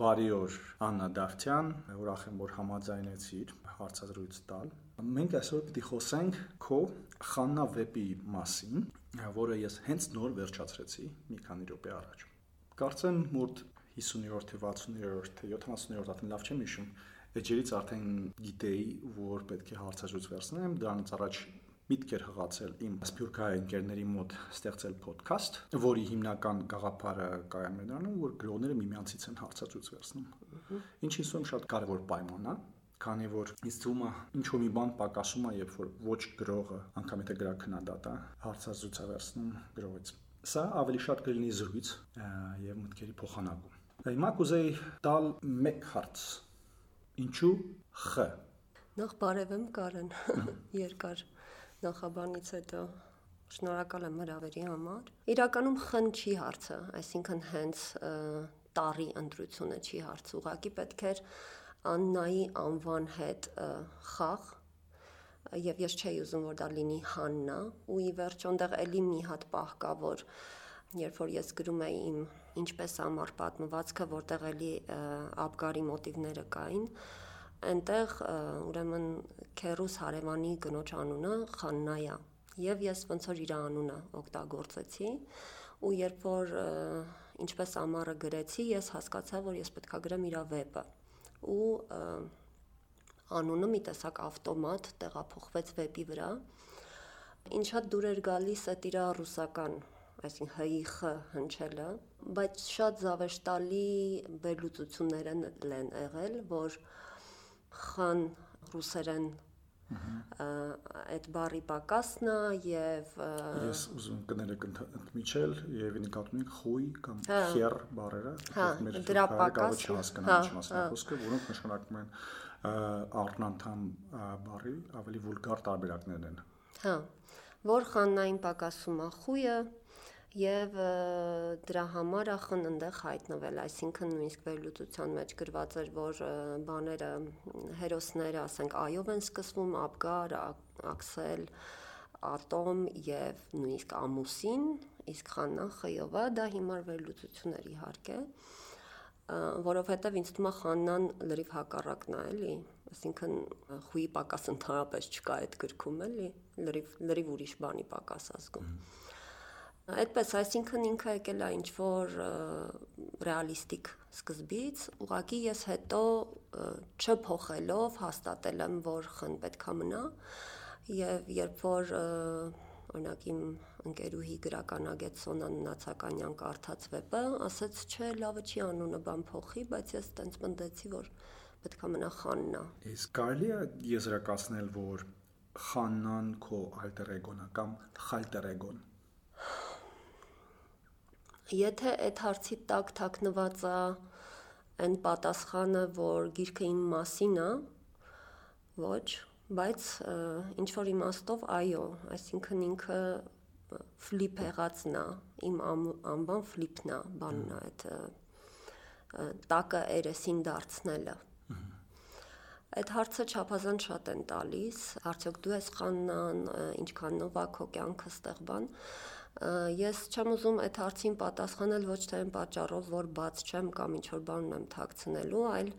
Բարի օր, Աննա Դավթյան, ուրախ եմ, որ համաձայնեցիր հարցազրույց տալ։ Մենք այսօր պիտի խոսենք քո Խաննա վեպի մասին, որը ես հենց նոր վերջացրեցի մի քանի րոպե առաջ։ Կարծեմ մոտ 50-րդ, 60-րդ, 70-րդ ատեն լավ չեմ հիշում, էջերից արդեն գիտեի, որ պետք է հարցազրույց վերցնեմ, դրանից առաջ միտք էր հղացել իմ սփյուռքահայ ընկերների մոտ ստեղծել ոդքասթ, որի հիմնական գաղափարը կայանում է դրանում, որ գրողները միմյանցից են հարցազրույց վերցնում։ Ինչին սում շատ կարևոր պայման է, քանի որ ինձ թվում է ինչ-որ մի բան պակասում է, երբ որ ոչ գրողը, անգամ եթե գրաքննադատը հարցազրույց է վերցնում գրողից։ Սա ավելի շատ կլինի զրույց եւ մտքերի փոխանակում։ Հիմա կուզեի տալ մեկ հարց. ինչու Խ։ Նախ բարևեմ Կարեն, երկար նախաբանից հետո շնորհակալ եմ հրավերի համար։ Իրականում Խ-ն չի հարցը, այսինքն հենց տառի ընտրությունը չի հարցը, ուղղակի պետք էր Աննայի անվան հետ խաղ, եւ ես չէի ուզում, որ դա լինի Հաննա, ու ի վերջո այնտեղ էլի մի հատ պահ կա, որ երբ որ ես գրում էի իմ ինչպես ամառ պատմվածքը, որտեղ էլի Աբգարի մոտիվները կային, այնտեղ ուրեմն քերուս հարևանի կնոջ անունը Խաննայա, եւ ես ոնց որ իր անունը օգտագործեցի, ու երբ որ ինչպես ամառը գրեցի, ես հասկացա, որ ես պետք է գրեմ իր վեպը, ու անունը մի տեսակ ավտոմատ տեղափոխվեց վեպի վրա, ինչա դուր էր գալիս այդ իր ռուսական, այսինքն հ-ի խ հնչելը, բայց շատ զավեշտալի վերլուծություններ են եղել, որ խան ռուսերեն այդ բառի պակասն է եւ ես ուզում կներեք ընդմիջել եւ նկատում եք խույ կամ խեր բառերը, դրա պակասը խոսքը, որոնք նշանակում են առնանդամ բառի ավելի վուլգար տարբերակներն են։ Որ խաննային պակասում է խույը եւ դրա համար ախն այնտեղ հայտնվել, այսինքն նույնիսկ վերլուծության մեջ գրված էր, որ բաները հերոսները, ասենք, այով են սկսվում, Աբգար, Աքսել, Ատոմ եւ նույնիսկ ամուսին, իսկ Խաննան խ-ով է, դա հիմար վերլուծություն էր իհարկե, որովհետեւ ինձ թվում է Խաննան լրիվ հակառակն է, էլի, այսինքն խույի պակաս ընդհանրապես չկա այդ գրքում, էլի, լրիվ ուրիշ բանի պակաս ազգում։ Այդպես, այսինքն ինքը եկել է ինչ-որ ռեալիստիկ սկզբից, ուղղակի ես հետո չփոխելով հաստատել եմ, որ խն պետք է մնա, եւ երբ որ օրինակ իմ ընկերուհի գրականագետ Սոնան Նացականյան կարդաց վեպը, ասաց, չէ, լավը չի անունը բան փոխի, բայց ես տենց մտածեցի, որ պետք է մնա Խաննա։ Իսկ կարելի է եզրակացնել, որ Խաննան քո ալտեր էգոն է կամ խալտեր էգոն։ Եթե այդ հարցի տակ թաքնված է այն պատասխանը, որ գիրքը իմ մասին է, ոչ, բայց ինչ որ իմաստով այո, այսինքն ինքը ֆլիպ եղածն է, իմ անվան ֆլիպն է, բանն է այդ տակը երեսին դարձնելը։ Այդ հարցը չափազանց շատ են տալիս, արդյոք դու ես Խաննան, ինչքանով է քո կյանքը ստեղ բան։ Ես չեմ ուզում այդ հարցին պատասխանել ոչ թե այն պատճառով, որ բաց չեմ կամ ինչ-որ բան ունեմ թաքցնելու, այլ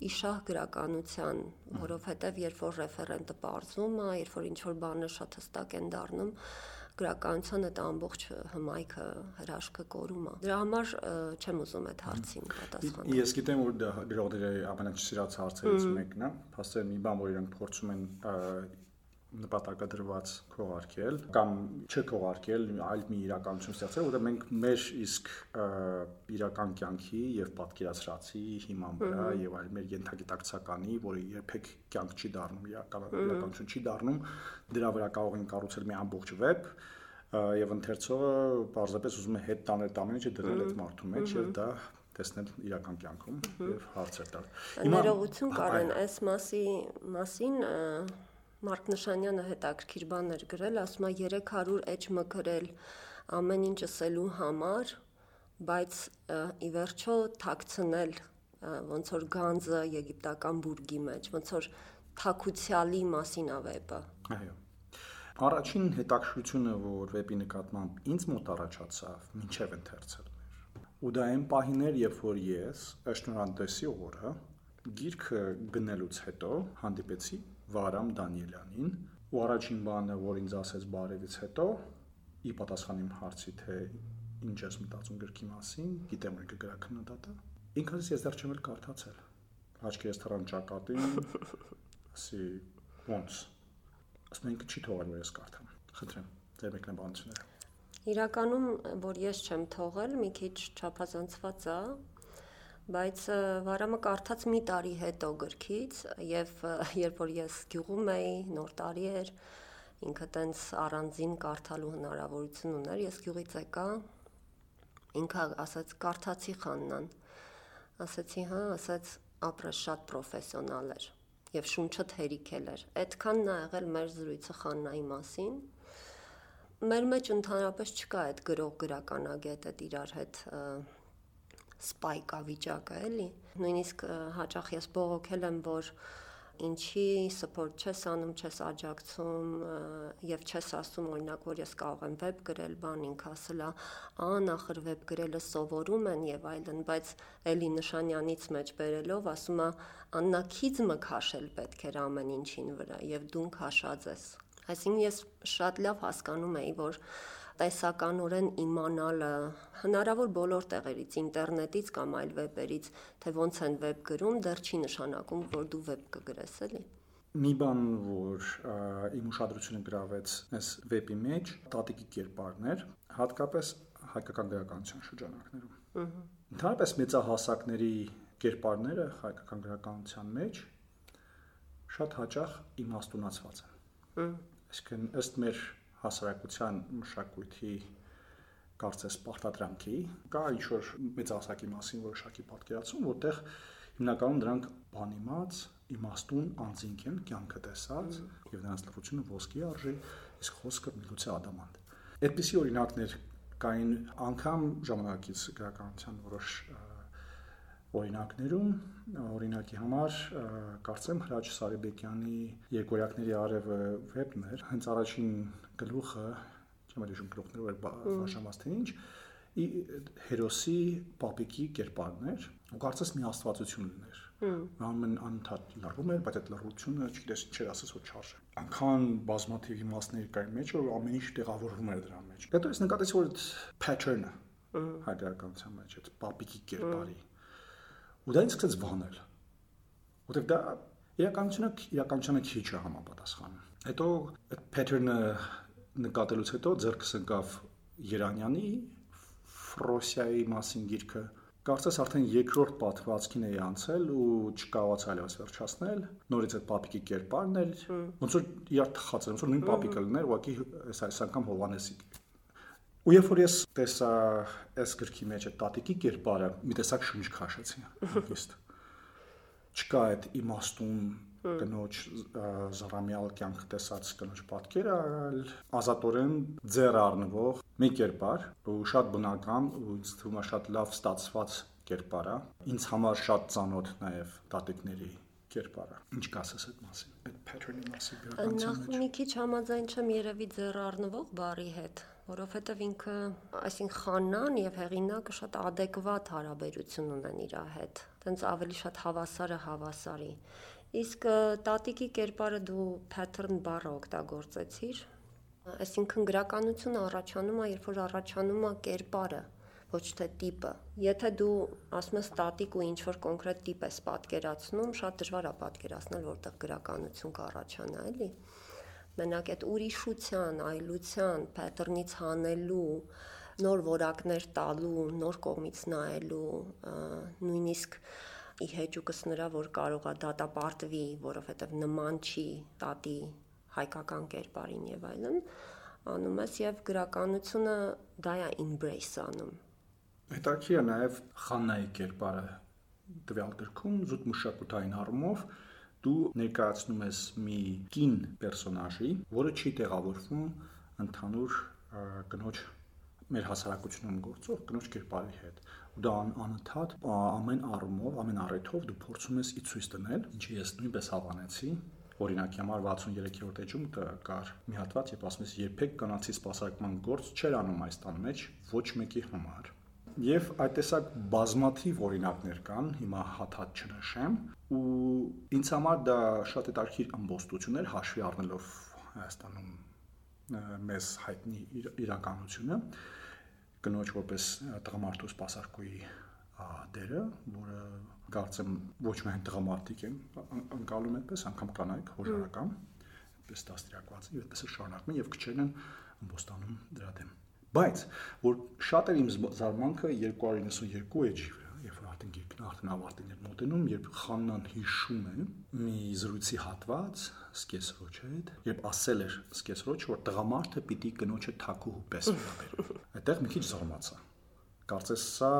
իշահ գրականության, որովհետև երբ որ ռեֆերենտը պարզվում է, երբ որ ինչ-որ բանը շատ հստակ են դառնում, գրականության այդ ամբողջ հմայքը, հրաշքը կորում է։ Դրա համար չեմ ուզում այդ հարցին պատասխանել։ Ես գիտեմ, որ դա գրողների ամենաչսիրած հարցերից մեկն է, փաստորեն մի բան, որ իրենք փորձում են նպատակադրված քողարկել կամ չքողարկել, այլ մի իրականություն ստեղծել, որտեղ մենք մեր իսկ իրական կյանքի եւ պատկերացրածի հիման վրա եւ այլ մեր ենթագիտակցականի, որը երբեք կյանք չի դառնում, իրականություն չի դառնում, դրա վրա կարող են կառուցել մի ամբողջ վեբ եւ ընթերցողը պարզապես ուզում է հետ տանել ամեն ինչը դնել այդ մարդու մեջ եւ դա տեսնել իրական կյանքում եւ հարցեր տալ։ Ներողություն Կարեն, այս մասին Մարկ Նշանյանը հետաքրքիր բաներ գրել, ասում է 300 էջ մկրել ամեն ինչ ասելու համար, բայց ի վերջո թաքցնել ոնց որ գանձը եգիպտական բուրգի մեջ, ոնց որ թաքուցյալի մասին է վեպը։ Այո։ Առաջին հետաքրքրությունը, որ վեպի նկատմամբ ինձ մոտ առաջացավ, մինչև ընթերցել Ու դա այն պահին էր, երբ որ ես Շնորհանդեսի օրը գիրքը գնելուց հետո հանդիպեցի Վարամ Դանիելյանին, ու առաջին բանը, որ ինձ ասեց բարևից հետո, ի պատասխան իմ հարցի, թե ինչ ես մտածում գրքի մասին, գիտեմ որ կգրա քննադատը, ինքս ես դեռ չեմ էլ կարդացել։ Աչքերս թռան ճակատին, ասի ոնց։ Ասում ինքը չի թողել որ ես կարդամ։ Խնդրեմ, ձեր մեկնաբանությունները։ Իրականում, որ ես չեմ թողել, մի քիչ չափազանցված է, բայց Վարամը կարդաց մի տարի հետո գրքից, եւ երբ որ ես գյուղում էի, նոր տարի էր, ինքը տենց առանձին կարդալու հնարավորություն ուներ, ես գյուղից եկա, ինքը ասաց կարդացի Խաննան, ասացի հա, ասաց ապրես շատ պրոֆեսիոնալ էր եւ շունչը թերիքել էր։ Այդքանն է եղել մեր զրույցը Խաննայի մասին։ Մեր մեջ ընդհանրապես չկա այդ գրող-գրականագետ այդ իրար հետ սպայկա վիճակը, էլի։ Նույնիսկ հաճախ ես բողոքել եմ, որ ինչի support չես անում, չես աջակցում եւ չես ասում օրինակ, որ ես կարող եմ վեբ գրել, բան ինքը ասել է, նախր վեբ գրելը սովորում են եւ այլն, բայց էլի Նշանյանից մեջ բերելով ասում է Աննա քիզմը քաշել պետք էր ամեն ինչին վրա եւ դու քաշած ես։ Այսինքն ես շատ լավ հասկանում էի, որ տեսականորեն իմանալը հնարավոր բոլոր տեղերից, ինտերնետից կամ այլ վեբերից, թե ոնց են վեբ գրում, դեռ չի նշանակում, որ դու վեբ կգրես, էլի։ Մի բան, որ իմ ուշադրությունը գրավեց այս վեբի մեջ, տատիկի կերպարներ, հատկապես հայկական գրականության շրջանակներում։ Ընդհանրապես մեծահասակների կերպարները հայկական գրականության մեջ շատ հաճախ իմաստունացված են։ Այսինքն ըստ մեր հասարակության մշակույթի կարծես պարտադրանքի կա ինչ-որ մեծահասակի մասին որոշակի պատկերացում, որտեղ հիմնականում դրանք բանիմաց, իմաստուն անձինք են, կյանքը տեսած եւ նրանց լրությունը ոսկի արժի, իսկ խոսքը միլուցե ադամանտ։ Այդպիսի օրինակներ կային անգամ ժամանակից գրականության որոշ օրինակներում, օրինակի համար կարծեմ Հրաչ Սարիբեկյանի Երկորյակների արևը վեբն էր, հենց առաջին գլուխը, չեմ հիշում գլուխները որ բաժանված թե ինչ, հերոսի պապիկի կերպարն էր, ու կարծես մի աստվածություն ուներ։ Անում են անընդհատ լռում էր, բայց այդ լռությունը, չգիտես ինչ էր ասես որ չարժե։ Անքան բազմաթիվ իմաստներ կային մեջ, որ ամեն ինչ տեղավորվում էր դրա մեջ։ Հետո ես նկատեցի որ pattern-ը հայկականության մեջ այդ պապիկի կերպարի ու դա ինձ սկսեց վանել, որտեղ դա իրականությունը քիչ է համապատասխանում։ Հետո այդ pattern-ը նկատելուց հետո ձեռքս ընկավ Երանյանի Ֆրոսիայի մասին գիրքը, կարծես արդեն երկրորդ պատմվածքին էի անցել ու չկարողացա այլևս վերջացնել, նորից այդ պապիկի կերպարն էր, ոնց որ իրար թխած էր, ոնց որ նույն պապիկը լիներ, ուղղակի այս անգամ Հովհաննեսի։ Ու երբ որ ես տեսա այս գրքի մեջ այդ տատիկի կերպարը, մի տեսակ շունչ քաշեցի, հանգիստ։ Չկա այդ իմաստուն կնոջ զառամյալ կյանք տեսած կնոջ պատկերը, այլ ազատորեն ձեռ առնվող մի կերպար, ու շատ բնական ու ինձ թվում է շատ լավ ստացված կերպար է։ Ինձ համար շատ ծանոթ նաև տատիկների կերպարը։ Ինչ կասես այդ մասին, այդ pattern-ի մասին գրականության մեջ։ Նախ մի քիչ համաձայն չեմ երևի ձեռ առնվող բառի հետ, որովհետև ինքը, այսինքն Խաննան եւ հեղինակը շատ adekvat հարաբերություն ունեն իր հետ։ Տենց ավելի շատ հավասարը հավասարի։ Իսկ տատիկի կերպարը դու pattern բառը օգտագործեցիր, այսինքն գրականությունը առաջանում է, երբ որ առաջանում է կերպարը, ոչ թե տիպը։ Եթե դու ասում ես տատիկ ու ինչ-որ կոնկրետ տիպ ես պատկերացնում, շատ դժվար է պատկերացնել, որտեղ գրականություն կառաջանա, էլի։ Մենակ այդ ուրիշության, այլության, pattern-ից հանելու, նոր որակներ տալու, նոր կողմից նայելու, նույնիսկ ի հեճուկս նրա, որ կարող է դատապարտվի, որովհետև նման չի տատի հայկական կերպարին եւ այլն, անում ես եւ գրականությունը դա է embrace անում։ Հետաքրքիր է նաև Խաննայի կերպարը տվյալ գրքում զուտ մշակութային առումով դու ներկայացնում ես մի կին պերսոնաժի, որը չի տեղավորվում ընդհանուր կնոջ մեր հասարակությունում գործող կնոջ կերպարի հետ։ Ու դա անընդհատ ամեն առումով, ամեն առիթով դու փորձում ես ի ցույց տնել, ինչը ես նույնպես հավանեցի։ Օրինակի համար 63-րդ էջում կար մի հատված, երբ ասում ես երբեք կանացի սպասարկման գործ չեր անում այս տան մեջ ոչ մեկի համար։ Եվ այդ տեսակ բազմաթիվ օրինակներ կան, հիմա հատ-հատ չնշեմ, ու ինձ համար դա շատ հետաքրքիր ըմբոստություն էր հաշվի առնելով Հայաստանում մեզ հայտնի իրականությունը, կնոջ որպես տղամարդու սպասարկուի դերը, որը կարծեմ ոչ միայն տղամարդիկ են անցալում այդպես, անգամ կանայք հորարական, այդպես դաստիարակված են, այդպես շարունակում են եւ քչերն են ըմբոստանում դրա դեմ։ Բայց որ շատ էր իմ զարմանքը 292 էջի վրա, երբ որ արդեն գիրքն արդեն ավարտին էր մոտենում, երբ Խաննան հիշում է մի զրույցի հատված սկեսրոջ հետ, երբ ասել էր սկեսրոջ, որ տղամարդը պիտի կնոջը թակուհու պես վերաբերի։ Այդտեղ մի քիչ զարմացա։ Կարծես սա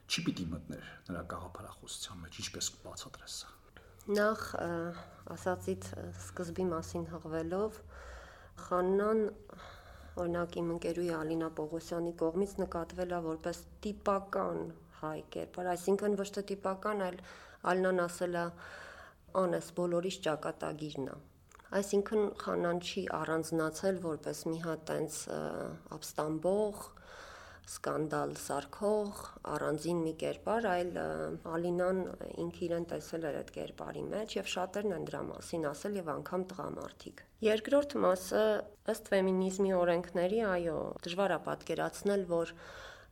չի պիտի մտներ նրա գաղափարախոսության մեջ, ինչպես բացատրես սա։ Նախ ասացիդ սկզբի մասին հղվելով Խաննան օրինակ իմ ընկերուհի Ալինա Պողոսյանի կողմից նկատվել է որպես տիպական հայ կերպար, այսինքն ոչ թե տիպական, այլ Ալինան ասել է անես բոլորիս ճակատագիրն է։ Այսինքն Խաննան չի առանձնացել որպես մի հատ տենց ապստամբող, սկանդալ սարքող, առանձին մի կերպար, այլ Ալինան ինքը իրեն տեսել էր այդ կերպարի մեջ եւ շատերն են դրա մասին ասել եւ անգամ տղամարդիկ։ Երկրորդ մասը ըստ ֆեմինիզմի օրենքների, այո, դժվար է պատկերացնել, որ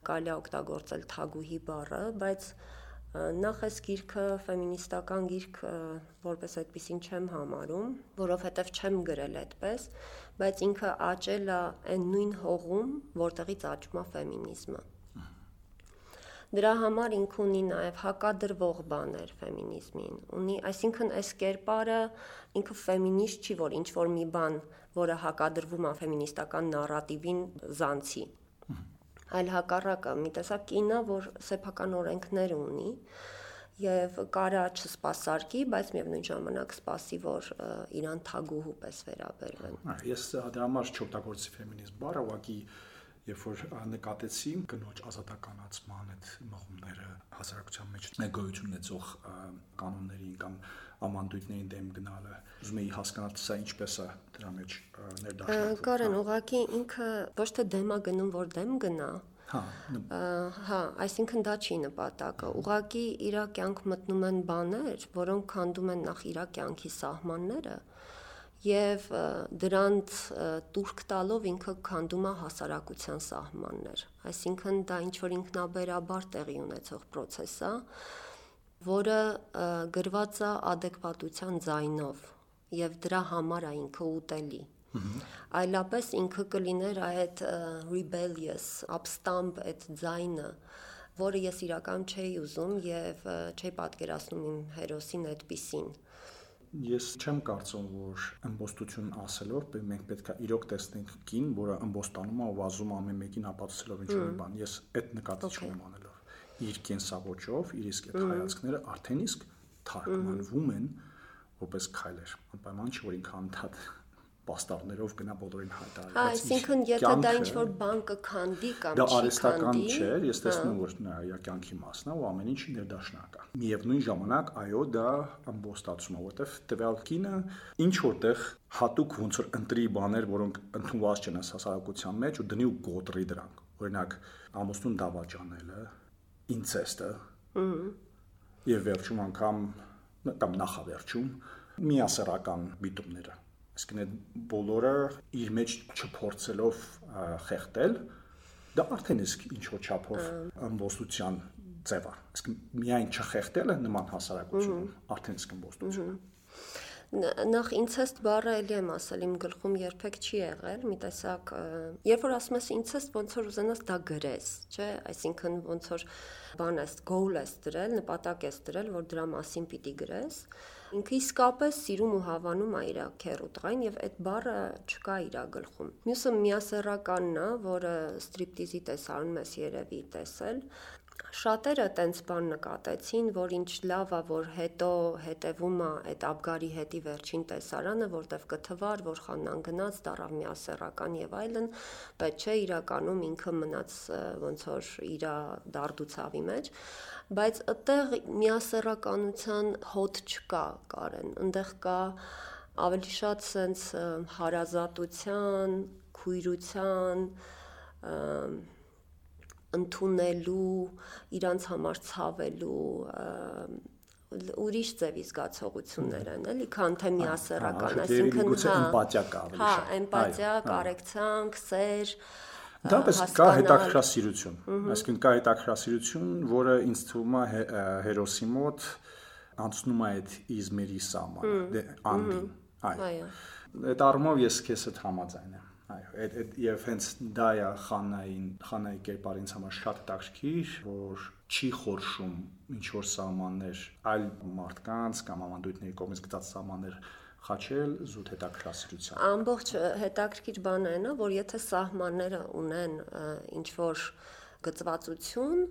կարելի է օգտագործել թագուհի բառը, բայց նախ այս գիրքը ֆեմինիստական գիրք որպես այդպեսին չեմ համարում, որովհետև չեմ գրել այդպես, բայց ինքը աճել է այն նույն հողում, որտեղից աճում է ֆեմինիզմը։ Դրա համար ինքը ունի նաև հակադրվող բաներ ֆեմինիզմին, ունի, այսինքն այս կերպարը ինքը ֆեմինիստ չի, որ ինչ որ մի բան, որը հակադրվում է ֆեմինիստական նարատիվին զանցի, այլ հակառակը մի տեսակ կինը, որ սեփական օրենքներ ունի եւ կարա չսպասարկի, բայց միևնույն ժամանակ սպասի, որ իրան թագուհու պես վերաբերվեն։ Ես դրա համար չօգտագործի ֆեմինիզմ բառը, ուղղակի երբ որ նկատեցի կնոջ ազատականացման այդ մղումները հասարակության մեջ գոյություն ունեցող կանոններին կամ ամանդույթներին դեմ գնալը, ուզում էի հասկանալ սա ինչպես է դրա մեջ ներդաշնակվում։ Կարեն, ուղղակի ինքը ոչ թե դեմ է գնում, որ դեմ գնա, հա, այսինքն դա չի նպատակը, ուղղակի իր կյանք մտնում են բաներ, որոնք քանդում են նախ իր կյանքի սահմանները եւ դրանց տուրք տալով ինքը քանդում է հասարակության սահմաններ, այսինքն դա ինչ որ ինքնաբերաբար տեղի ունեցող process է, որը գրված է adekvatության ձայնով եւ դրա համար է ինքը ուտելի։ Այլապես ինքը կլիներ այդ rebellious, ապստամբ այդ ձայնը, որը ես իրական չէի ուզում եւ չէի պատկերացնում իմ հերոսին այդպիսին։ Ես չեմ կարծում, որ ըմբոստություն ասելով մենք պետք է իրոք տեսնենք կին, որը ըմբոստանում է ու վազում ամեն մեկին ապացուցելով ինչ-որ բան։ Ես այդ նկատի չունեմ անելով։ Իր կենսավոճով, իր իսկ այդ հայացքները արդեն իսկ թարգմանվում են որպես քայլեր։ Անպայման չէ, որ ինքը անդադ պաստառներով գնա բոլորին հայտարարի։ Այսինքն եթե դա ինչ-որ բան կքանդի կամ չի քանդի, դա արհեստական չէ, ես տեսնում որ նրա կյանքի մասն է ու ամեն ինչ ներդաշնակ է։ Միևնույն ժամանակ, այո, դա ամբոստացում է, որովհետև տվյալ կինը ինչ որտեղ հատուկ ոնց որ ընտրի բաներ, որոնք ընդունված չեն հասարակության մեջ ու դնի ու գոտրի դրանք։ Օրինակ, ամուսնուն դավաճանելը, ինցեստը, եւ վերջում անգամ կամ նախավերջում միասեռական միտումները։ Այսինքն այդ բոլորը իր մեջ չփորձելով խեղդել, դա արդեն իսկ ինչ որ չափով ըմբոստության ձև է։ Այսինքն միայն չխեղդելը նման հասարակությունում արդեն իսկ ըմբոստություն է։ Նախ ինցեստ բառը էլի եմ ասել, իմ գլխում երբեք չի եղել, մի տեսակ, երբ որ ասում ես ինցեստ, ոնց որ ուզենաս դա գրես, չէ, այսինքն ոնց որ բան ես, goal ես դրել, նպատակ ես դրել, որ դրա մասին պիտի գրես, ինքը իսկապես սիրում ու հավանում է իր քեռու տղային եւ այդ բառը չկա իր գլխում։ Մյուսը միասեռականն է, որը ստրիպտիզի տեսարանում ես երևի տեսել։ Շատերը տենց բան նկատեցին, որ ինչ լավ է, որ հետո հետևում է այդ Աբգարի հետի վերջին տեսարանը, որտեվ կթվար, որ Խաննան գնաց, դառավ միասեռական եւ այլն, բայց չէ, իրականում ինքը մնաց ոնց որ իր դարդուցավի մեջ, բայց այդտեղ միասեռականության հոտ չկա, Կարեն, այնտեղ կա ավելի շատ սենց հարազատության, քույրության, ընդունելու, իրանց համար ցավելու ուրիշ ձևի զգացողություններ են, էլի, քան թե միասեռական, այսինքն էմպաթիա կա ավելի շատ։ Հա, էմպաթիա, կարեկցանք, սեր, դապես կա հետաքրքրասիրություն, այսինքն կա հետաքրքրասիրություն, որը ինձ թվում է հերոսի մոտ անցնում է այդ իզմերի սահմանը, անդին, այո։ Այդ առումով ես քեզ հետ համաձայն եմ, այո, եւ հենց դա է Խանայի կերպարը ինձ համար շատ հետաքրքիր, որ չի խորշում ինչ որ սահմաններ այլ մարդկանց կամ ավանդույթների կողմից գծած սահմաններ խաչել զուտ հետաքրքրասիրության։ Ամբողջ հետաքրքիր բանը այն է, որ եթե սահմանները ունեն ինչ որ գծվածություն,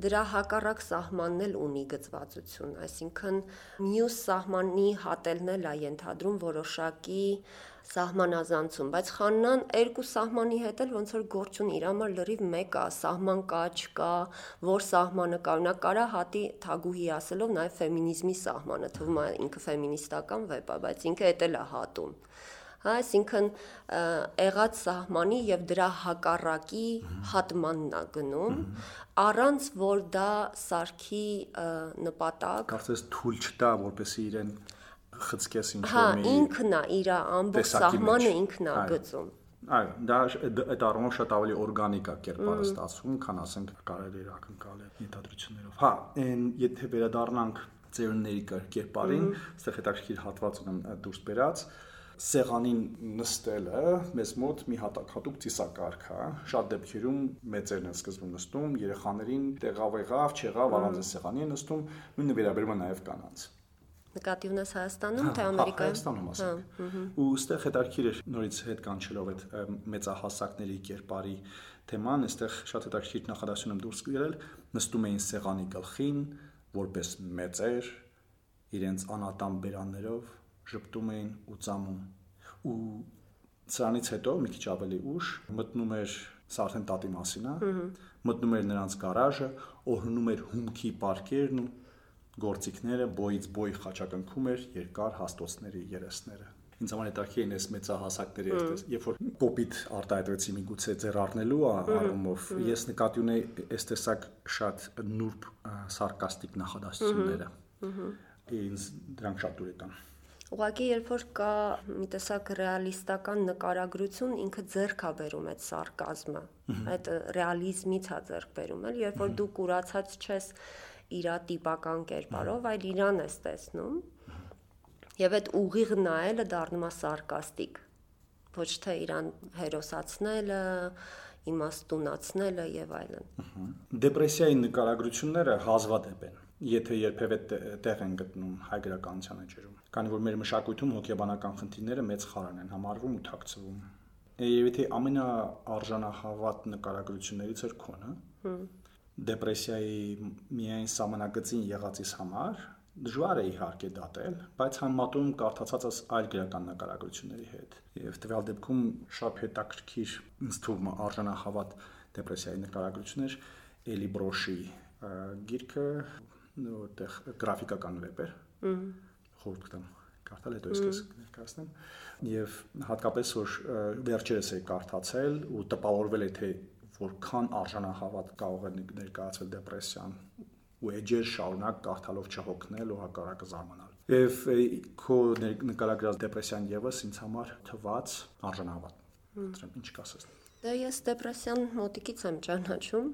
դրա հակառակ սահմանն էլ ունի գծվածություն, այսինքն մյուս սահմանի հատելն էլ է ենթադրում որոշակի սահմանազանցում, բայց Խաննան երկու սահմանի հետ էլ ոնց որ գործ ունի, իր համար լրիվ մեկ է, սահման կա, չկա, որ սահմանը կա, նա կարա հատի թագուհի ասելով նաև ֆեմինիզմի սահմանը, թվում է ինքը ֆեմինիստական վեպ է, բայց ինքը էդ էլ է հատում։ Հա, այսինքն եղած սահմանի եւ դրա հակառակի հատմանն է գնում, առանց որ դա սարքի նպատակ։ Կարծես թույլ չտա, որպեսզի իրեն խցկես ինչ որ մի։ Հա, ինքն է իր ամբողջ սահմանը ինքն է գծում։ Այո, դա այդ առումով շատ ավելի օրգանիկ է կերպարը ստացվում, քան ասենք կարելի է ակնկալել ենթադրություններով։ Հա, եթե վերադառնանք ծերունների կերպարին, այստեղ հետաքրքիր հատված ունեմ դուրս բերած, սեղանին նստելը մեզ մոտ մի հատուկ ծիսակարգ է, շատ դեպքերում մեծերն են սկզբում նստում, երեխաներին տեղավ եղավ, չեղավ, առանց սեղանի են նստում, նույնը վերաբերում է նաև կանանց։ Նկատի ունես Հայաստանում, թե Ամերիկայում։ Հայաստանում ասենք։ Ու այստեղ հետաքրքիր է նորից հետ կանչելով այդ մեծահասակների կերպարի թեման, այստեղ շատ հետաքրքիր նախադասություն եմ դուրս գրել, նստում էին սեղանի գլխին, որպես մեծեր, իրենց անատամ բերաններով ժպտում էին ու ծամում։ Ու սրանից հետո մի քիչ ավելի ուշ մտնում էր, սա արդեն տատի մասին է, մտնում էր նրանց գարաժը, օրհնում էր հումքի պարկերն ու գործիքները, բոյից բոյ խաչակնքում էր երկար հաստոցների երեսները։ Ինձ համար հետաքրքիր են այս մեծահասակների այդպես, երբ որ կոպիտ արտահայտվեցի միգուցե ձեռ առնելու առումով, ես նկատի ունեի այս տեսակ շատ նուրբ սարկաստիկ նախադասությունները։ Ինձ դրանք շատ դուր եկան։ Ուղղակի երբ որ կա մի տեսակ ռեալիստական նկարագրություն, ինքը ձեռք է բերում այդ սարկազմը, այդ ռեալիզմից է ձեռք բերում, էլ երբ որ դու կուրացած չես իր տիպական կերպարով, այլ իրան ես տեսնում, եւ այդ ուղիղ նայելը դառնում է սարկաստիկ, ոչ թե իրան հերոսացնելը, իմաստունացնելը եւ այլն։ Դեպրեսիայի նկարագրությունները հազվադեպ են, եթե երբևէ տեղ են գտնում հայ գրականության էջերում, քանի որ մեր մշակույթում հոգեբանական խնդիրները մեծ խարան են համարվում ու թաքցվում։ Եվ եթե ամենաարժանահավատ նկարագրություններից էր քոնը, դեպրեսիայի միայն սահմանագծին եղածից համար դժվար է իհարկե դատել, բայց համատում կարդացածս այլ գրական նկարագրությունների հետ։ Եվ տվյալ դեպքում շատ հետաքրքիր ինձ թվում է արժանահավատ դեպրեսիայի նկարագրություններ Էլի Բրոշի գիրքը, որտեղ գրաֆիկական վեպ էր։ Խորհուրդ կտամ կարդալ, հետո ես ներկայացնեմ։ Եվ հատկապես որ վերջերս էի կարդացել ու տպավորվել է թե որքան արժանահավատ կարող է ներկայացվել դեպրեսիան ու էջեր շարունակ կարդալով չհոգնել ու հակառակը զարմանալ։ Եվ քո նկարագրած դեպրեսիան եւս ինձ համար թված արժանահավատ։ Դրան ինչ կասես։ Դե ես դեպրեսիան մոտիկից եմ ճանաչում։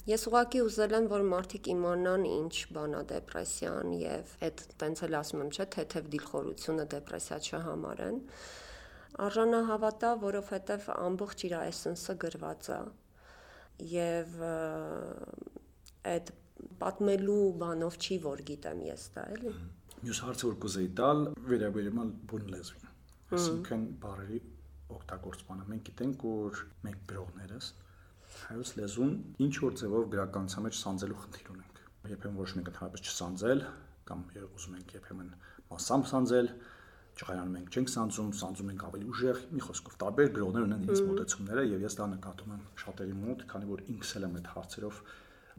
Ես ուղղակի ուզել եմ, որ մարդիկ իմանան ինչ բան է դեպրեսիան եւ այդ տենց էլ ասում եմ, չէ՞, թեթև դիլխորությունը դեպրեսիա չհամարեն։ Արժանահավատա, որովհետեւ ամբողջ իր էսենսը գրված է եւ այդ պատմելու բանով չի որ գիտեմ ես դա, էլի։ Մյուս հարցը որ կուզեի տալ, վերաբերում է բուն լեզվին։ Այսինքն բառերի օգտագործմանը։ Մենք գիտենք, որ մենք գրողներս հայոց լեզուն ինչ որ ձևով գրականության մեջ սանձելու խնդիր ունենք։ Երբեմն ոչ մենք ընդհանրապես չսանձել կամ ուզում ենք երբեմն մասամբ սանձել, ճղայանում ենք չենք սանձում ենք ավելի ուժեղ, մի խոսքով տարբեր գրողներ ունեն իրենց մոտեցումները եւ ես դա նկատում եմ շատերի մոտ, քանի որ ինքս էլ եմ այդ հարցերով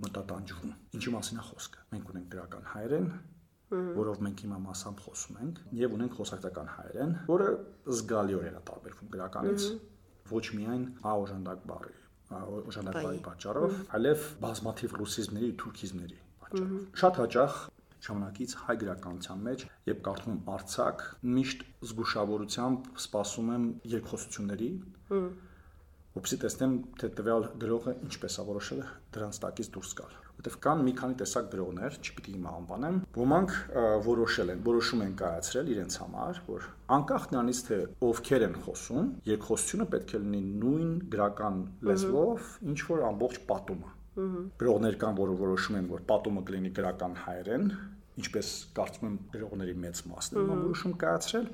մտատանջվում։ Ինչի մասին է խոսքը։ Մենք ունենք գրական հայերեն, որով մենք հիմա մասամբ խոսում ենք, եւ ունենք խոսակցական հայերեն, որը զգալիորեն է տարբերվում գրականից, ոչ միայն օժանդակ բառի օժանդակային պատճառով, այլև բազմաթիվ ռուսիզմների ու թուրքիզմների պատճառով։ Շատ հաճախ ժամանակից հայ գրականության մեջ, երբ կարդում եմ արձակ, միշտ զգուշավորությամբ սպասում եմ երկխոսությունների, որպեսզի տեսնեմ, թե տվյալ գրողը ինչպես է որոշել դրանց տակից դուրս գալ։ Որտեվ կան մի քանի տեսակ գրողներ, չպիտի հիմա անվանեմ, ոմանք որոշում են կայացրել իրենց համար, որ անկախ նրանից թե ովքեր են խոսում, երկխոսությունը պետք է լինի նույն գրական լեզվով, ինչ որ ամբողջ պատումը։ Գրողներ կան, որը որոշում են, որ պատումը կլինի գրական հայերեն, ինչպես կարծում եմ գրողների մեծ մասն են որոշում կայացրել,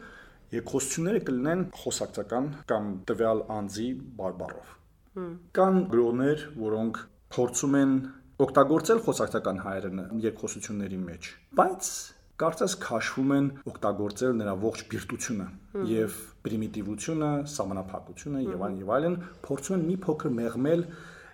երկխոսությունները կլինեն խոսակցական կամ տվյալ անձի բարբառով։ Կան գրողներ, որոնք փորձում են օգտագործել խոսակցական հայերենը երկխոսությունների մեջ, բայց կարծես քաշվում են օգտագործել նրա ողջ բիրտությունը եւ պրիմիտիվությունը, սահմանափակությունը եւ այլն, փորձում են մի փոքր մեղմել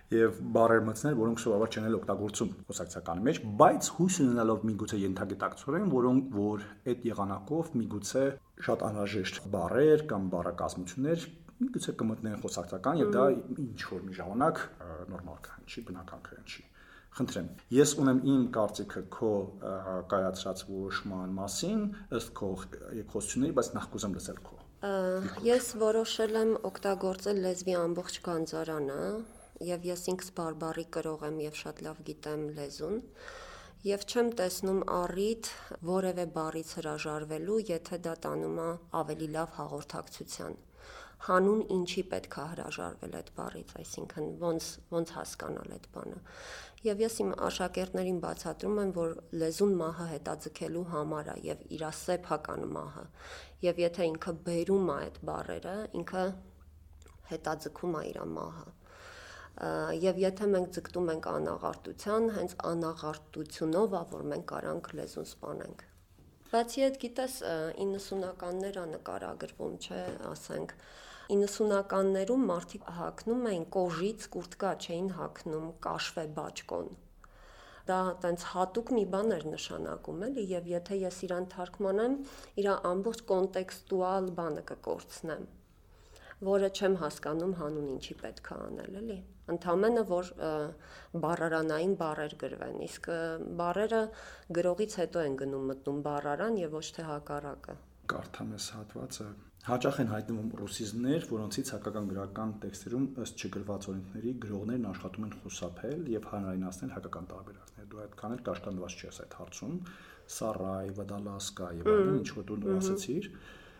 եւ բառեր մտցնել, որոնք սովորաբար չեն օգտագործում խոսակցականի մեջ, բայց հույս ունենալով միգուցե ենթագիտակցորեն, որ այդ եղանակով միգուցե շատ անհրաժեշտ բառեր կամ բառակազմություններ միգուցե կմտնեն խոսակցական եւ դա ինչ որ մի ժամանակ նորմալ կհնչի, բնական կհնչի։ Խնդրեմ, ես ունեմ իմ կարծիքը քո կայացրած որոշման մասին, ըստ քո երկխոսությունների, բայց նախ կուզեմ լսել քո։ Ես որոշել եմ օգտագործել լեզվի ամբողջ գանձարանը եւ ես ինքս բարբառի կրող եմ եւ շատ լավ գիտեմ լեզուն եւ չեմ տեսնում առիթ որևէ բառից հրաժարվելու, եթե դա տանում է ավելի լավ հաղորդակցության։ Հանուն ինչի պետք է հրաժարվել այդ բառից, այսինքն ոնց հասկանալ այդ բանը։ Եվ ես իմ աշակերտներին բացատրում եմ, որ լեզուն մահը հետաձգելու համար է եւ իր սեփական մահը։ Եվ եթե ինքը բերում է այդ բառերը, ինքը հետաձգում է իր մահը։ Եվ եթե մենք ձգտում ենք անաղարտության, հենց անաղարտությունով է, որ մենք կարանք լեզուն սպանենք։ Բացի այդ, գիտես, 90-ականներ նկարագրվում, չէ, ասենք 90-ականներում մարդիկ հագնում էին կոժից կուրտկա, չէին հագնում կաշվե բաճկոն։ Դա տենց հատուկ մի բան էր նշանակում, էլի, եւ եթե ես իրան թարգմանեմ, իր ամբողջ կոնտեքստուալ բանը կկորցնեմ, որը չեմ հասկանում հանուն ինչի պետք է անել, էլի։ Ընդամենը որ բառարանային բառեր գրվեն, իսկ բառերը գրողից հետո են մտնում բառարան եւ ոչ թե հակառակը։ Կարդամ ես հատվածը։ Հաճախ են հայտնվում ռուսիզմներ, որոնցից հայկական գրական տեքստերում ըստ չգրված օրենքների գրողներն աշխատում են խուսափել եւ հանրայնացնել հայկական տարբերակներ։ Դու այդքան էլ կաշկանդված չես այդ հարցում։ Սարայ, Վադալասկա եւ այլն, ինչ որ դու ասացիր,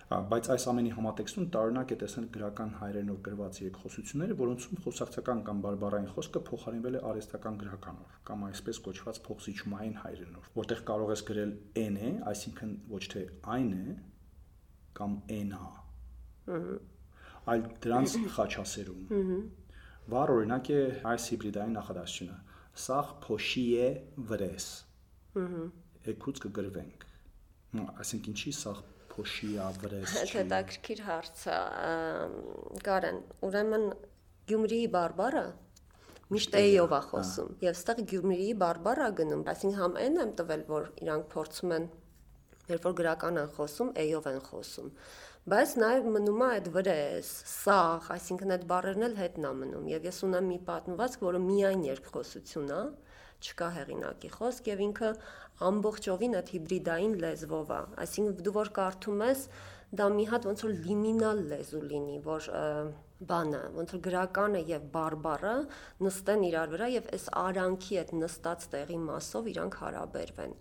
բայց այս ամենի համատեքստում տարօրինակ է տեսնել գրական հայերենով գրված երկխոսությունները, որոնցում խոսակցական կամ բարբառային խոսքը փոխարինվել է արհեստական գրականով կամ այսպես կոչված փոխզիջումային հայերենով, որտեղ կարող ես գրել n է, այսինքն ոչ թե այն է կամ n-ա, այլ դրանց խաչասերում։ Վառ օրինակ է այս հիբրիդային նախադասությունը. Սաղ փոշի է վրես։ Եկուց կգրվենք։ Այսինքն ինչի սաղ փոշի է վրես։ Հետաքրքիր հարց է, Կարեն, ուրեմն Գյումրիի բարբառը միշտ էյով է խոսում, եւ այստեղ Գյումրիի բարբառը գնում, այսինքն համ n եմ տվել, որ իրանք փորձում են, երբ որ գրական են խոսում, էյով են խոսում, բայց նաեւ մնում է այդ վրես, սաղ, այսինքն այդ բառերն էլ հետն է մնում, եւ ես ունեմ մի պատմվածք, որը միայն երկխոսություն է, չկա հեղինակի խոսք եւ ինքը ամբողջովին այդ հիբրիդային լեզվով է, այսինքն դու որ կարդում ես, դա մի հատ ոնց որ լիմինալ լեզու լինի, որ բանը, ոնց որ գրականը եւ բարբառը նստեն իրար վրա եւ այս արանքի այդ նստած տեղի մասով իրանք հարաբերվեն։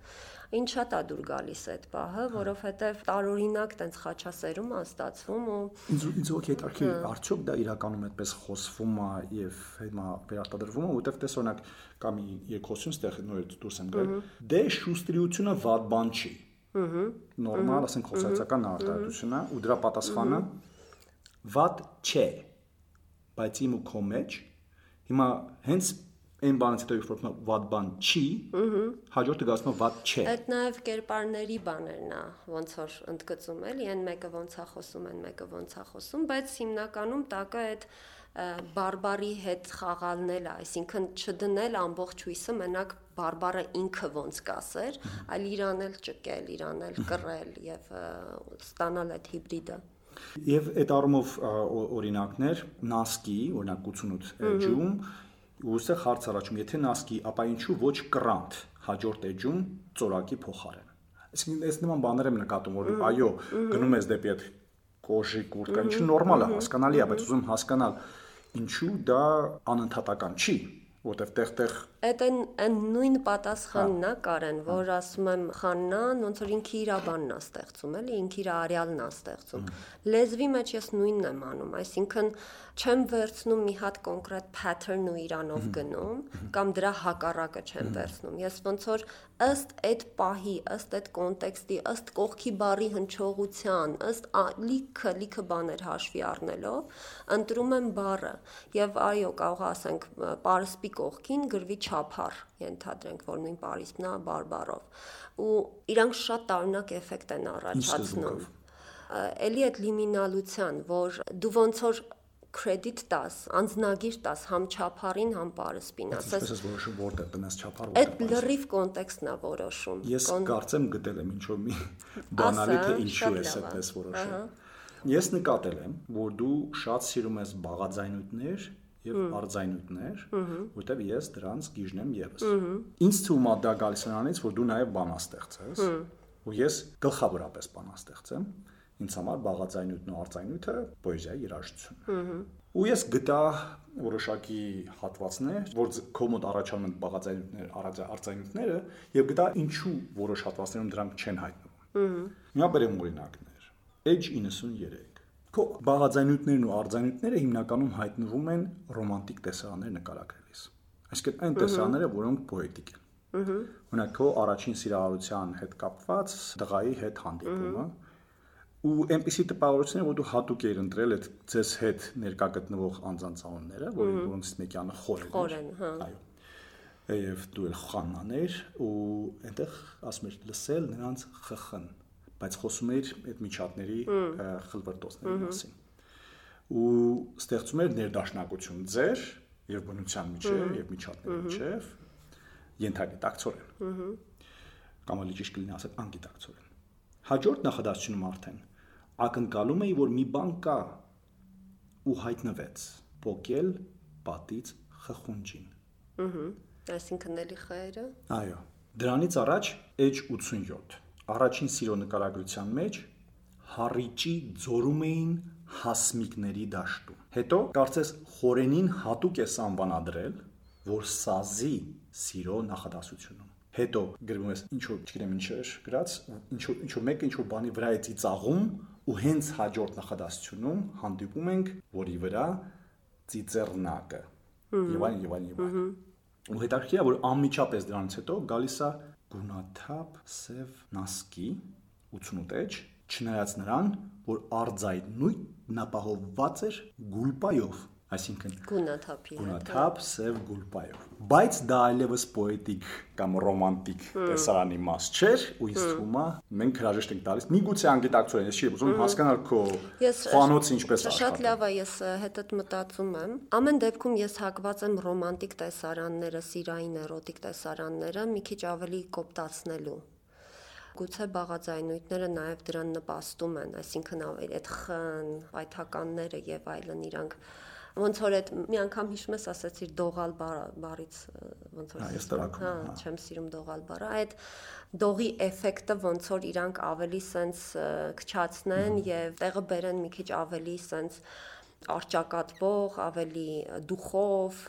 Ինչ շատ է դուր գալիս այդ պահը, որովհետեւ տարօրինակ տենց խաչասերում է ստացվում ու ինձ ոգի հետաքրքիր արդյոք դա իրականում այդպես խոսվում է եւ հիմա վերարտադրվում է, որտեվ տես օրինակ կա մի երկխոսություն ստեղ նոր դուրս եմ գալ, դե շուստրիությունը վատ բան չի։ Նորմալ, ասենք խոսակցական արտահայտություն է ու դրա պատասխանը վատ չէ, բայց իմ ու քո մեջ հիմա հենց այն բանից հետո երբ որ վատ բան չի, հաջորդը գալու է վատ չէ։ Այդ նաև կերպարների բաներն է, ոնց որ ընդգծում էլի, այն մեկը ոնց է խոսում, այն մեկը ոնց է խոսում, բայց հիմնականում տակը այդ բարբառի հետ խաղալն է, այսինքն չդնել ամբողջ հույսը մենակ բարբառը ինքը ոնց կասեր, այլ իրան էլ ճկել, իրան էլ կռել եւ ստանալ այդ հիբրիդը։ Եվ այդ առումով օրինակներ նասկի, օրինակ 88 էջում ուստեղ հարց առաջում, եթե նասկի, ապա ինչու ոչ կռանտ հաջորդ էջում ծորակի փոխարեն։ Այսինքն այս նման բաներ եմ նկատում, որ այո, գնում ես դեպի այդ կոժի կուրտկա, ինչը նորմալ է, հասկանալի է, բայց ուզում հասկանալ ինչու դա անընդհատական չի, որտեվ տեղ-տեղ Այդ այն նույն պատասխանն է Կարեն, որ ասում եմ Խաննան, ոնց որ ինքը իր բանն է ստեղծում, էլի, ինքը իր արյալն է ստեղծում։ Լեզվի մեջ ես նույնն եմ անում, այսինքն չեմ վերցնում մի հատ կոնկրետ pattern ու իրանով գնում, կամ դրա հակառակը չեմ վերցնում։ Ես ոնց որ ըստ այդ պահի, ըստ այդ կոնտեքստի, ըստ կողքի բառի հնչողության, ըստ լիքը բաներ հաշվի առնելով, ընտրում եմ բառը եւ այո, կարող ասենք պարսպի կողքին գրվի չափար, ենթադրենք, որ նույն պարիսպն է բարբառով։ Ու իրանք շատ տարօրինակ էֆեկտ են առաջացնում։ Էլի այդ լիմինալության, որ դու ոնց որ credit տաս, անձնագիր տաս համ չափարին, համ պարսպին, ասես ես որոշում որտեղ տնես չափար, որտեղ։ Այդ լրիվ կոնտեքստն է որոշում։ Ես կարծեմ գտել եմ ինչ-որ մի բանալի թե ինչու ես այդպես որոշում։ Ես նկատել եմ, որ դու շատ սիրում ես բաղաձայնույթներ եւ արձայնույթներ, որտեղ ես դրանց գիժն եմ եւս։ Ինձ թվում է դա գալիս նրանից, որ դու նաեւ բանաստեղծ ես, ու ես գլխավորապես բանաստեղծ եմ։ Ինձ համար բաղաձայնույթն ու արձայնույթը պոեզիայի երաժշտություն։ Ու ես գտա որոշակի հատվածներ, որ քո մոտ առաջանում են բաղաձայնույթներ, արձայնույթները, եւ գտա ինչու որոշ հատվածներում դրանք չեն հայտնվում։ Հիմա բերեմ օրինակներ։ Edge 93 Քո բաղաձայնույթներն ու արձայնույթները հիմնականում հայտնվում են ռոմանտիկ տեսարաններ նկարագրելիս։ Այսինքն այն տեսարանները, որոնք պոետիկ են։ Օրինակ քո առաջին սիրահարության հետ կապված դղայի հետ հանդիպումը, ու այնպիսի տպավորություններ, որ դու հատուկ ես ընտրել այդ ձեզ հետ ներկա գտնվող անձանց անունները, որոնցից մեկյանը Խորեն, այո։ Եվ դու էլ Խաննաներ, ու այնտեղ ասում ես լսել նրանց խխն, բայց խոսում էր այդ միջատների խլվրտոցների մասին։ Ու ստեղծում էր ներդաշնակություն ձեր եւ բնության միջեւ եւ միջատների միջեւ ենթագիտակցորեն։ Կամ ավելի ճիշտ կլինի ասել անգիտակցորեն։ Հաջորդ նախադասությունում արդեն ակնկալում էի, որ մի բան կա ու հայտնվեց փոկել պատից խխունջին։ Այսինքն էլի խերը։ Այո։ Դրանից առաջ Edge 87 առաջին սիրո նկարագրության մեջ Հառիճի ձորում էին հասմիկների դաշտում։ Հետո կարծես Խորենին հատուկ է անվանադրել, որ սազի սիրո նախադասությունում։ Հետո գրվում է ինչ որ, չգիտեմ ինչ էր գրած, ինչ որ մեկը ինչ որ բանի վրա է ծիծաղում ու հենց հաջորդ նախադասությունում հանդիպում ենք, որի վրա ծիծեռնակը։ Եվ այլն։ Ու հետաքրքիր է, որ անմիջապես դրանից հետո գալիս է գունաթափ սև նասկի 88 էջ, չնայած նրան, որ արձայնույթն ապահովված էր գուլպայով, այսինքն գունաթափ սև գուլպայով։ Բայց դա այլևս պոետիկ կամ ռոմանտիկ տեսարանի մաս չէր, ու ինձ թվում է մենք հրաժեշտ ենք տալիս։ Միգուցե անգիտակցորեն, ես չի ուզում հասկանալ քո խանոցը ինչպես աշխատում։ Շատ լավ է, ես հետդ մտածում եմ։ Ամեն դեպքում ես հակված եմ ռոմանտիկ տեսարանները, սիրային էրոտիկ տեսարանները մի քիչ ավելի կոպտացնելու։ Գուցե բաղաձայնույթները նաև դրան նպաստում են, այսինքն այդ խն, պայթականները եւ այլն իրանք ոնց որ այդ մի անգամ հիշում ես ասացիր դողալ բառից ոնց որ չեմ սիրում դողալ բառը, այդ դողի էֆեկտը ոնց որ իրանք ավելի սենց քչացնեն եւ տեղը բերեն մի քիչ ավելի սենց արճակատվող, ավելի դուխով,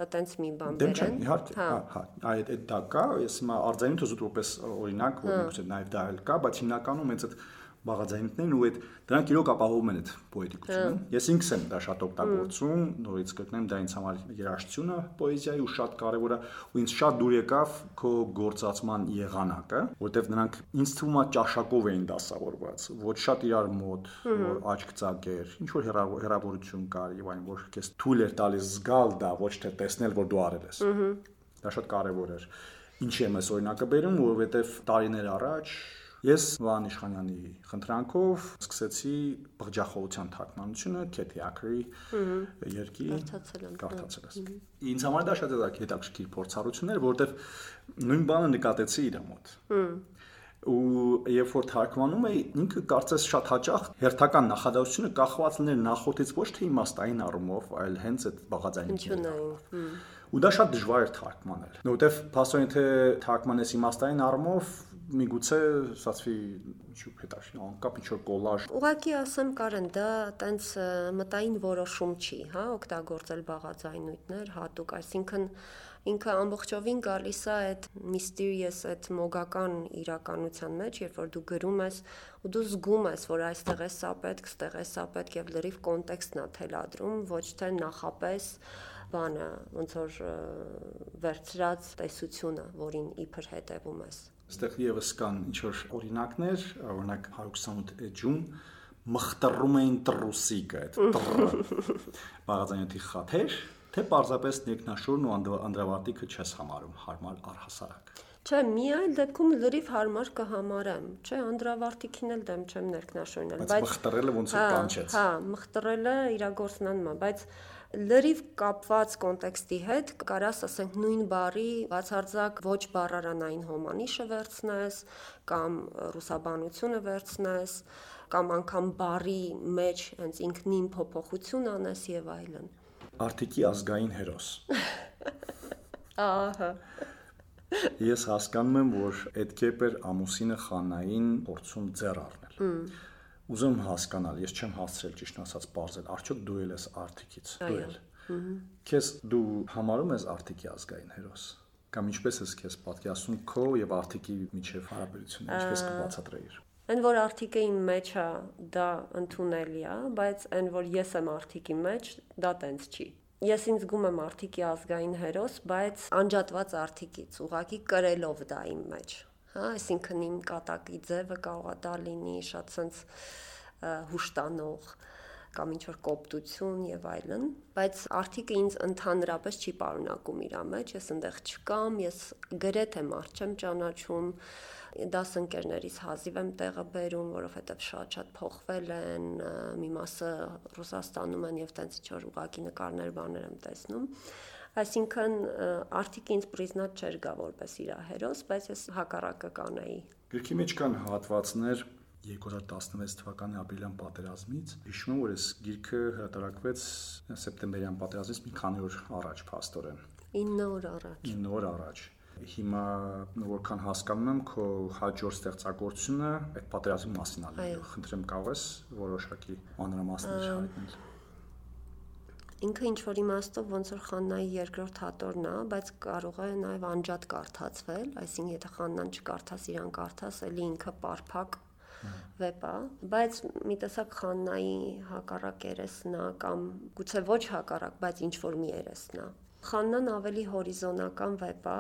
այտենց մի բան բերեն։ Իհարկե, այդ դա կա, ես հիմա արձայնույթը զուտ որպես օրինակ, որ միգուցե նաև դա էլ կա, բայց հիմնականում հենց այդ բաղաձայնույթներն ու այդ դրանք իրոք ապահովում են այդ պոետիկությունը։ Ես ինքս եմ դա շատ օգտագործում, նորից կգտնեմ դա ինձ համար երաժշտությունը պոեզիայի ու շատ կարևոր է, ու ինձ շատ դուր եկավ քո գործածման եղանակը, որտեվ նրանք ինձ թվում է ճաշակով էին դասավորված, ոչ շատ իրար մոտ, որ աչք ծակեր, ինչ որ հեռավորություն կար եւ այն որ քեզ թույլ էր տալիս զգալ դա, ոչ թե տեսնել որ դու արել ես։ Դա շատ կարևոր էր։ Ինչի եմ այս օրինակը բերում, որովհետեվ տարիներ առաջ ես Վահան Իշխանյանի խնդրանքով սկսեցի բղջախոհության թարգմանությունը Քեթի Աքրի երկի կարդացել եմ։ Ինձ համար դա շատ հետաքրքիր փորձառություն էր, որովհետև նույն բանը նկատեցի իր մոտ։ ու երբ որ թարգմանում էի, ինքը կարծես շատ հաճախ հերթական նախադասությունը կախված լիներ նախորդից ոչ թե իմաստային առումով, այլ հենց այդ բաղաձայնությունն։ Ու դա շատ դժվար էր թարգմանել, որովհետև փաստորեն թե թարգմանես իմաստային առումով միգուցե ստացվի ինչու հետաքրքիր անկապ ինչ որ կոլաժ։ Ուղղակի ասեմ Կարեն, դա տենց մտային որոշում չի, հա, օգտագործել բաղաձայնույթներ հատուկ, այսինքն ինքը ամբողջովին գալիս է այդ mysterious, այդ մոգական իրականության մեջ, երբ որ դու գրում ես ու դու զգում ես, որ այստեղ է սա պետք, ստեղ է սա պետք եւ լրիվ կոնտեքստն է թելադրում, ոչ թե նախապես բանը, ոնց որ վերցրած տեսությունը, որին իբր հետևում ես։ Այստեղ եւս կան ինչ որ օրինակներ, օրինակ 128 էջում մխտրում էին տրուսիկը, այդ բաղաձայնույթի խաթեր, թե պարզապես ներքնաշորն ու անդրավարտիքը չես համարում հարմար առհասարակ։ Չէ, մի այլ դեպքում լրիվ հարմար կհամարեմ, չէ, անդրավարտիքին էլ դեմ չեմ ներքնաշորնել, բայց մխտրելը ոնց որ կանչեց։ Հա, մխտրելը իրագործնանն է, բայց լրիվ կապված կոնտեքստի հետ կարաս ասենք նույն բառի բացարձակ ոչ բառարանային հոմանիշը վերցնես կամ ռուսաբանությունը վերցնես կամ անգամ բառի մեջ հենց ինքնին փոփոխություն անես եւ այլն։ Արտիքի ազգային հերոս։ Ահա։ Ես հասկանում եմ, որ այդ կերպ էր ամուսինը Խաննային փորձում ձեռ առնել։ Ուզում հասկանալ, ես չեմ հասցրել ճիշտ ասած բարձել, արդյոք դու ես Արտիկից, դու ես։ Քեզ դու համարում ես Արտիկի ազգային հերոս, կամ ինչպես ես քեզ պատկերացնում քո եւ Արտիկի միջև հարաբերությունը, ինչպես կբացատրեիր։ Այն որ Արտիկը իմ մեջ է, դա ընդունելի է, բայց այն որ ես եմ Արտիկի մեջ, դա տենց չի։ Ես ինձ զգում եմ Արտիկի ազգային հերոս, բայց անջատված Արտիկից, ուղղակի կրելով դա իմ մեջ։ Հա, այսինքն իմ կատակի ձևը կարող է դա լինի շատ sense հուշտանող կամ ինչ-որ կոպտություն եւ այլն, բայց Արտիկը ինձ ընդհանրապես չի պարունակում իր մեջ, ես այնտեղ չկամ, ես գրեթե մարդ չեմ ճանաչում, դասընկերներից հազիվ եմ տեղը բերում, որովհետեւ շատ փոխվել են, մի մասը Ռուսաստանում են եւ տենց ինչ-որ ուղակի նկարներ բաներ եմ տեսնում։ Այսինքն Արտիկը ինձ պրիզնատ չէր գա որպես իր հերոս, բայց ես հակառակը կանեի։ Գրքի մեջ կան հատվածներ 2016 թվականի ապրիլյան պատերազմից։ Հիշում եմ, որ այս գիրքը հրատարակվեց սեպտեմբերյան պատերազմից մի քանի օր առաջ, փաստորեն։ 9 օր առաջ։ 9 օր առաջ։ Հիմա որքան հասկանում եմ, քո հաջորդ ստեղծագործությունը այդ պատերազմի մասին է։ Խնդրեմ, կարող ես որոշակի մանրամասներ հայտնել։ Ինքը ինչ որ իմաստով ոնց որ Խաննայի երկրորդ հատորն է, բայց կարող է նաև անջատ կարդացվել, այսինքն եթե Խաննան չկարդաս, իրան կարդաս, էլի ինքը պարփակ վեպ է, բայց մի տեսակ Խաննայի հակառակ երեսն է կամ գուցե ոչ հակառակ, բայց ինչ որ մի երեսն է։ Խաննան ավելի հորիզոնական վեպ է,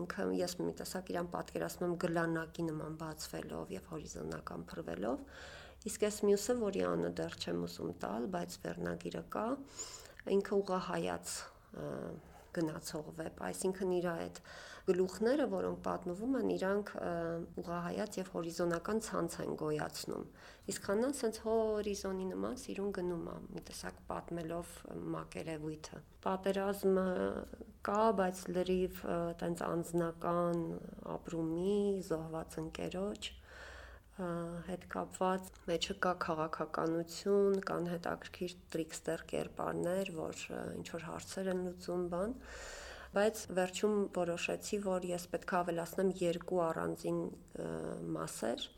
ինքը ես մի տեսակ իրան պատկերացնում եմ գլանակի նման բացվելով եւ հորիզոնական փռվելով, իսկ այս մյուսը, որի անունը դեռ չեմ ուզում տալ, բայց վերնագիրը կա, ինքը ուղղահայաց գնացող վեպ, այսինքն իր այդ գլուխները, որոնք պատմվում են, իրանք ուղղահայաց եւ հորիզոնական ցանց են գոյացնում։ Իսկ Խաննան սենց հորիզոնի նման սիրուն գնում է, մի տեսակ պատմելով մակերևույթը։ Պատերազմը կա, բայց լրիվ տենց անձնական ապրումի, զոհված ընկերոջ հետ կապված, մեջը կա քաղաքականություն, կան հետաքրքիր տրիքստեր կերպարներ, որ ինչ որ հարցեր են լուծում բան, բայց վերջում որոշեցի, որ ես պետք է ավելացնեմ երկու առանձին մասեր։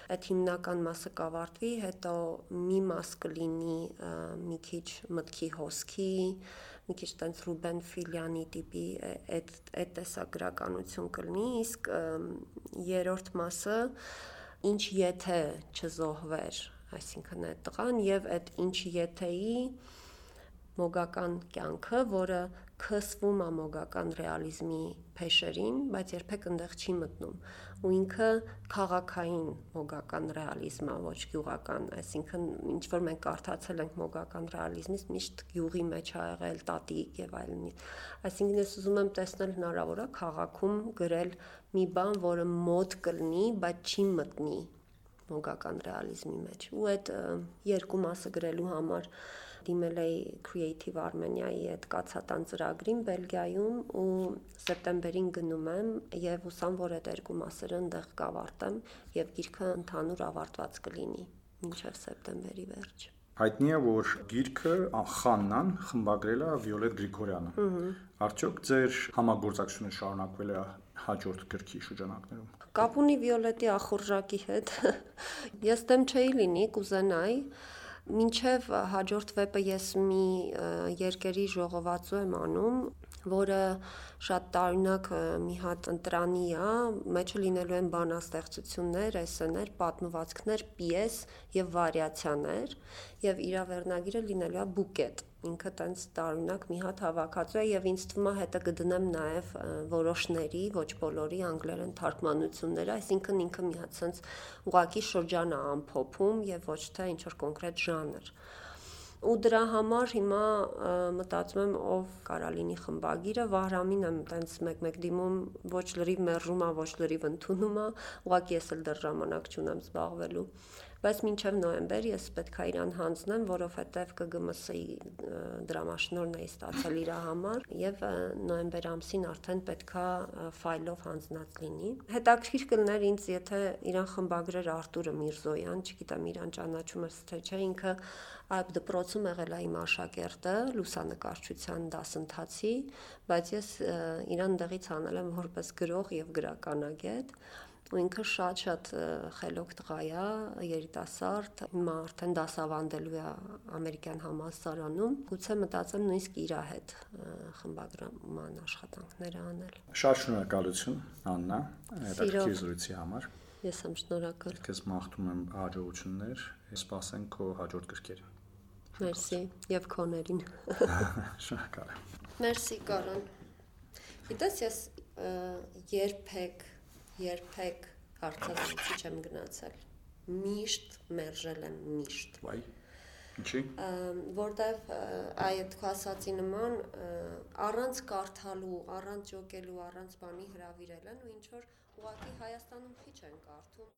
Այդ հիմնական մասը կավարտվի, հետո մի մաս կլինի մի քիչ մտքի հոսքի, մի քիչ տենց Ռուբեն Ֆիլյանի տիպի այդ տեսագրականություն կլինի, իսկ երրորդ մասը ինչ եթե չզոհվեր, այսինքն այդ տղան եւ այդ ինչ եթեի մոգական կյանքը, որը քսվում է մոգական ռեալիզմի փեշերին, բայց երբեք այնտեղ չի մտնում։ Ու ինքը քաղաքային մոգական ռեալիզմ է, ոչ գյուղական, այսինքն ինչ որ մենք կարդացել ենք մոգական ռեալիզմից, միշտ գյուղի մեջ ա եղել տատիկ եւ այլն։ Այսինքն ես ուզում եմ տեսնել հնարավոր է քաղաքում գրել մի բան, որը մոտ կլինի, բայց չի մտնի մոգական ռեալիզմի մեջ։ Ու այդ երկու մասը գրելու համար դիմել էի Creative Armenia-ի այդ կացատան ծրագրին Բելգիայում ու սեպտեմբերին գնում եմ եւ հուսամ, որ այդ երկու մասերը այնտեղ կավարտեմ եւ գիրքը ընդհանուր ավարտված կլինի մինչեւ սեպտեմբերի վերջ։ Հայտնի է, որ գիրքը Խաննան խմբագրել է Վիոլետ Գրիգորյանը։ Արդյոք ձեր համագործակցությունը շարունակվել է հաջորդ գրքի շրջանակներում։ Կապ ունի Վիոլետի ախորժակի հետ։ Ես դեմ չէի լինի, կուզենայի, մինչև հաջորդ վեպը ես մի երկերի ժողովածու եմ անում, որը շատ տարօրինակ մի հատ ընտրանի է, մեջը լինելու են բանաստեղծություններ, էսսեներ, պատմվածքներ, պիես եւ վարիացիաներ, եւ իր վերնագիրը լինելու է բուկետ։ Ինքը տենց տարօրինակ մի հատ հավաքածու է եւ ինձ թվում է հետը կդնեմ նաեւ որոշների, ոչ բոլորի անգլերեն թարգմանությունները, այսինքն ինքը մի հատ sense ուղակի շրջան է ամփոփում եւ ոչ թե ինչ որ կոնկրետ ժանր։ Ու դրա համար հիմա մտածում եմ ով կարա լինի խմբագիրը, Վահրամին եմ տենց մեկ-մեկ դիմում, ոչ լրիվ մերժում է, ոչ լրիվ ընդունում է, ուղղակի ես էլ դեռ ժամանակ չունեմ զբաղվելու։ Բայց մինչև նոյեմբեր ես պետք է իրան հանձնեմ, որովհետև ԿԳՄՍ-ի դրամաշնորհն էի ստացել իր համար եւ նոյեմբեր ամսին արդեն պետք է ֆայլով հանձնած լինի։ Հետաքրքիր կլներ ինձ, եթե իրան խմբագրեր Արտուրը Միրզոյան, չգիտեմ իրան ճանաչում ես թե չէ, ինքը այդ դպրոցում եղել է իմ աշակերտը լուսանկարչության դասընթացի, բայց ես իրան դեղից անել եմ որպես գրող եւ գրականագետ։ Ու ինքը շատ խելոք տղա է, երիտասարդ, հիմա արդեն դասավանդելու է ամերիկյան համալսարանում, գուցե մտածեմ նույնիսկ իր հետ խմբագրման աշխատանքները անել։ Շատ շնորհակալություն, Աննա, հետաքրքիր զրույցի համար։ Ես եմ շնորհակալ։ Քեզ մաղթում եմ հաջողություններ, սպասենք քո հաջորդ գրքերին։ Մերսի եւ քոներին։ Շնորհակալ եմ։ Մերսի Կարեն։ Գիտես, ես երբեք հարցազրույցի չեմ գնացել։ Միշտ մերժել եմ, միշտ։ Վայ։ Ինչի՞։ Որտեվ այդ քո ասացի նման առանց կարդալու, առանց ջոկելու, առանց բանի հրավիրել են ու ինչ որ ուղղակի Հայաստանում քիչ են կարդում։